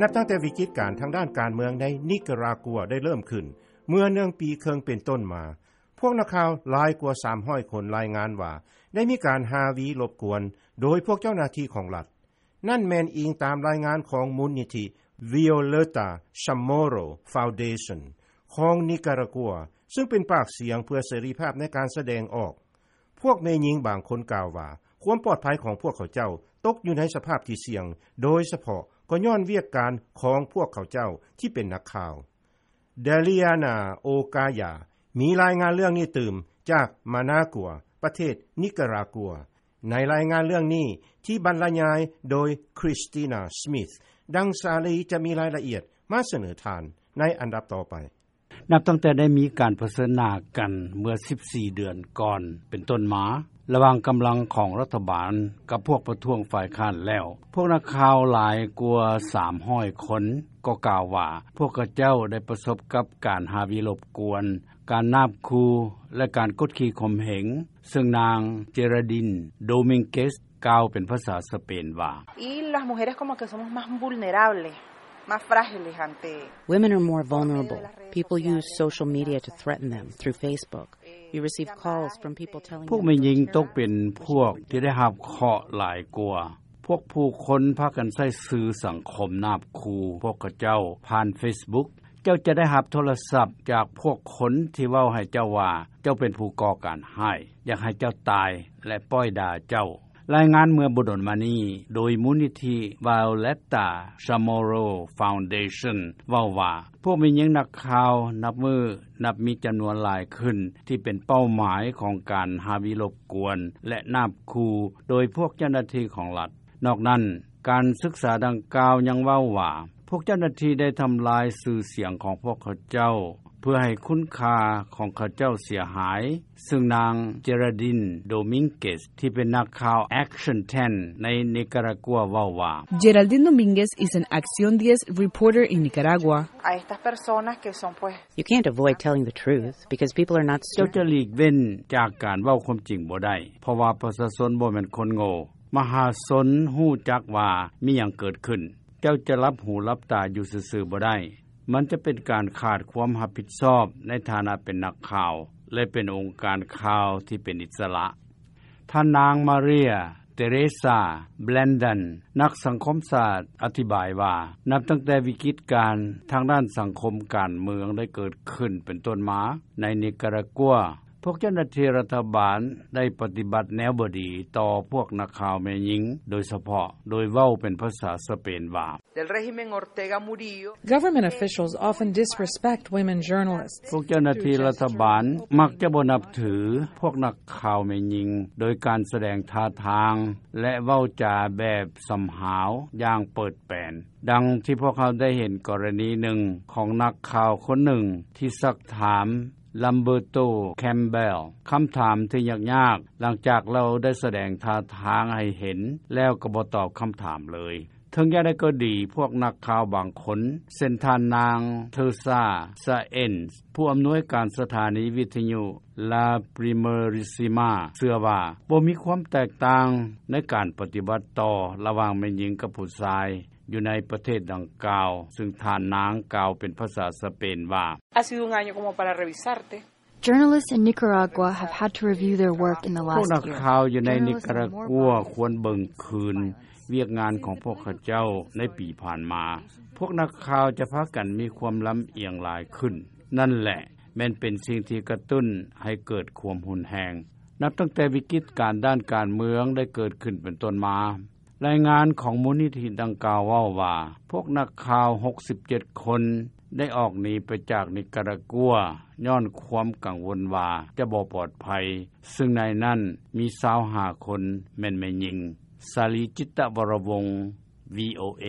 ນັບຕັ້ງແຕ່ວິກິດການທາງດ້ານການເມືອງໃນນິກາຣາກົວໄດ້ເລີ່ມຂຶ້ນເມື່ອໜຶ່ງປີເຄິ່ງເປັນຕົ້ນມາ, ພວກນັກຂ່າວຫຼາຍກວ່າສາມຮ້ອຍຄົນລາຍງານວ່າ ໄດ້ມີການຮາວີລົບກວນໂດຍພວກເຈົ້າໜ້າທີ່ຂອງລັດ. ນັ້ນແມ່ນອີງຕາມລາຍງານຂອງມູນນິທິ Violeta Chamorro Foundation ຂອງນິກາຣາກົວ, ຊຶ່ງເປັນປາກສຽງເພື່ອເສລີພາບໃນການສະແດງອອກ. ພວກແມ່ຍິງບາງຄົນກ່າວວ່າ ຄວາມປອດໄພຂອງພວກເຂົາເຈົ້າຕົກຢູ່ໃນສະພາບທີ່ສ່ຽງ, ໂດຍສະເພາະກໍຍ້ອນວຽກການຂອງພວກເຂົາເຈົ້າທີ່ເປັນນັກຂ່າວ. Deliana Ocaya ມີລາຍງານເລື່ອງນີ້ຕື່ມຈາກມານາກົວ, ປະເທດນິກາຣາກົວ, ໃນລາຍງານເລື່ອງນີ້ທີ່ບັນລະຍາຍໂດຍ Christina Smith. ດັ່ງສາລີຈະມີລາຍລະອຽດມາສະເໜີທ່ານໃນອັນດັບຕໍ່ໄປ. ນັບຕັ້ງແຕ່ໄດ້ມີການປະເຊີນໜ້າກັນເມື່ອສິບສີ່ເດືອນກ່ອນເປັນຕົ້ນມາ ລະຫວ່າງກຳລັງຂອງລັດຖະບານກັບພວກປະທ້ວງຝ່າຍຄ້ານແລ້ວ, ພວກນັກຂ່າວຫຼາຍກວ່າສາມຮ້ອຍຄົນກໍກ່າວວ່າ ພວກເຂົາເຈົ້າໄດ້ປະສົບກັບການຮາວີລົບກວນ, ການນາບຂູ່ ແລະ ການກົດຂີ່ຂົ່ມເຫງ, ເຊິ່ງນາງ Geraldine Domínguez ກ່າວເປັນພາສາສະເປນວ່າ Y las mujeres como que somos más vulnerables, más frágiles ante Women are more vulnerable. People use social media to threaten them through Facebook. You receive calls from people telling ພວກແມ່ຍິງຕົກເປັນພວກທີ່ໄດ້ຮັບເຄາະຫຼາຍກວ່າ. ພວກຜູ້ຄົນພາກັນໃຊ້ສື່ສັງຄົມນາບຂູ່ພວກເຂົາເຈົ້າຜ່ານ Facebook. ເຈົ້າຈະໄດ້ຮັບໂທລະສັບຈາກພວກຄົນທີ່ເວົ້າໃຫ້ເຈົ້າວ່າ ເຈົ້າເປັນຜູ້ກໍ່ການຮ້າຍ, ຢາກໃຫ້ເຈົ້າຕາຍ ແລະ ປ້ອຍດ່າເຈົ້າ. ລາຍງານເມື່ອບໍ່ດົນມານີ້ໂດຍມູນນິທິ Violeta Chamorro Foundation ເວົ້າວ່າ ພວກແມ່ຍິງນັກຂ່າວນັບມື້ນັບມີຈຳນວນຫຼາຍຂຶ້ນ ທີ່ເປັນເປົ້າໝາຍຂອງການຮາວີລົບກວນ ແລະ ນາບຂູ່ໂດຍພວກເຈົ້າໜ້າທີ່ຂອງລັດ. ນອກນັ້ນ, ການສຶກສາດັ່ງກ່າວຍັງເວົ້າວ່າ ພວກເຈົ້າໜ້າທີ່ໄດ້ທຳລາຍຊື່ສຽງຂອງພວກເຂົາເຈົ້າ ເພື່ອໃຫ້ຄຸນຄ່າຂອງເຂົາເຈົ້າເສຍຫາຍ, ເຊິ່ງນາງ Geraldine Domínguez ທີ່ເປັນນັກຂ່າວ Action ten ໃນນິກາຣາກົວເວົ້າວ່າ Geraldine Domínguez is an Acción diez reporter in Nicaragua. A estas personas que son, pues, You can't avoid telling the truth because people are not ເຈົ້າຈະ stupid. ຫຼີກເວັ້ນຈາກການເວົ້າຄວາມຈິງບໍ່ໄດ້ ເພາະວ່າປະຊາຊົນບໍ່ແມ່ນຄົນໂງ່. ມະຫາຊົນຮູ້ຈັກວ່າມີຫຍັງເກີດຂຶ້ນ. ເຈົ້າຈະຫຼັບຫູຫຼັບຕາຢູ່ຊື່ໆບໍ່ໄດ້. ມັນຈະເປັນການຂາດຄວາມຮັບຜິດຊອບໃນຖານະເປັນນັກຂ່າວ ແລະ ເປັນອົງການຂ່າວທີ່ເປັນອິດສະຫຼະ. ທ່ານນາງ María Teresa Blandón ນັກສັງຄົມສາດ ອະທິບາຍວ່າ ນັບຕັ້ງແຕ່ວິກິດການທາງດ້ານສັງຄົມການເມືອງໄດ້ເກີດຂຶ້ນເປັນຕົ້ນມາໃນນິກາຣາກົວ, ພວກເຈົ້າໜ້າທີ່ລັດຖະບານໄດ້ປະຕິບັດແນວບໍ່ດີຕໍ່ພວກນັກຂ່າວແມ່ຍິງ ໂດຍສະເພາະໂດຍເວົ້າເປັນພາສາສະເປນວ່າ Del régimen Ortega Murillo. Government officials often disrespect women journalists. ພວກເຈົ້າໜ້າທີ່ລັດຖະບານມັກຈະບໍ່ນັບຖືພວກນັກຂ່າວແມ່ຍິງ ໂດຍການສະແດງທ່າທາງ ແລະ ເວົ້າຈາແບບສຳຫາວຢ່າງເປີດແປນ, ດັ່ງທີ່ພວກເຮົາໄດ້ເຫັນກໍລະນີໜຶ່ງຂອງນັກຂ່າວຄົນໜຶ່ງທີ່ຊັກຖາມ Lamberto Campbell ຄຳຖາມທີ່ຍາກໆ ຫຼັງຈາກລາວໄດ້ສະແດງທ່າທາງໃຫ້ເຫັນແລ້ວກໍບໍ່ຕອບຄຳຖາມເລີຍ. ເຖິງຢ່າງໃດກໍດີ, ພວກນັກຂ່າວບາງຄົນ ເຊັ່ນ ທ່ານນາງ Teresa Sáenz ຜູ້ອຳນວຍການສະຖານີວິທະຍຸ La Primerísima ເຊື່ອວ່າບໍ່ມີຄວາມແຕກຕ່າງໃນການປະຕິບັດຕໍ່ລະຫວ່າງແມ່ຍິງກັບຜູ້ຊາຍ ຢູ່ໃນປະເທດດັ່ງກ່າວ, ຊຶ່ງທ່ານນາງກ່າວເປັນພາສາສະເປນວ່າ Ha sido un año como para revisarte. Journalists in Nicaragua have had to review their work in the last year. ພວກນັກຂ່າວຢູ່ໃນນິກາຣາກົວຄວນເບິ່ງຄືນວຽກງານຂອງພວກເຂົາເຈົ້າໃນປີຜ່ານມາ. ພວກນັກຂ່າວຈະພາກັນມີຄວາມລຳອຽງຫຼາຍຂຶ້ນ. ນັ້ນແຫຼະ ແມ່ນເປັນສິ່ງທີ່ກະຕຸ້ນໃຫ້ເກີດຄວາມຮຸນແຮງ. ນັບຕັ້ງແຕ່ວິກິດການດ້ານການເມືອງໄດ້ເກີດຂຶ້ນເປັນຕົ້ນມາ, ລາຍງານຂອງມູນນິທິດັ່ງກ່າວເວົ້າວ່າ ພວກນັກຂ່າວຫົກສິບເຈັດຄົນໄດ້ອອກໜີໄປຈາກນິກາຣາກົວຍ້ອນຄວາມກັງວົນວ່າຈະບໍ່ປອດໄພ, ຊຶ່ງໃນນັ້ນມີຊາວຫ້າຄົນແມ່ນແມ່ຍິງ. ສາລີ ຈິດຕະວໍລະວົງ ວີໂອເອ.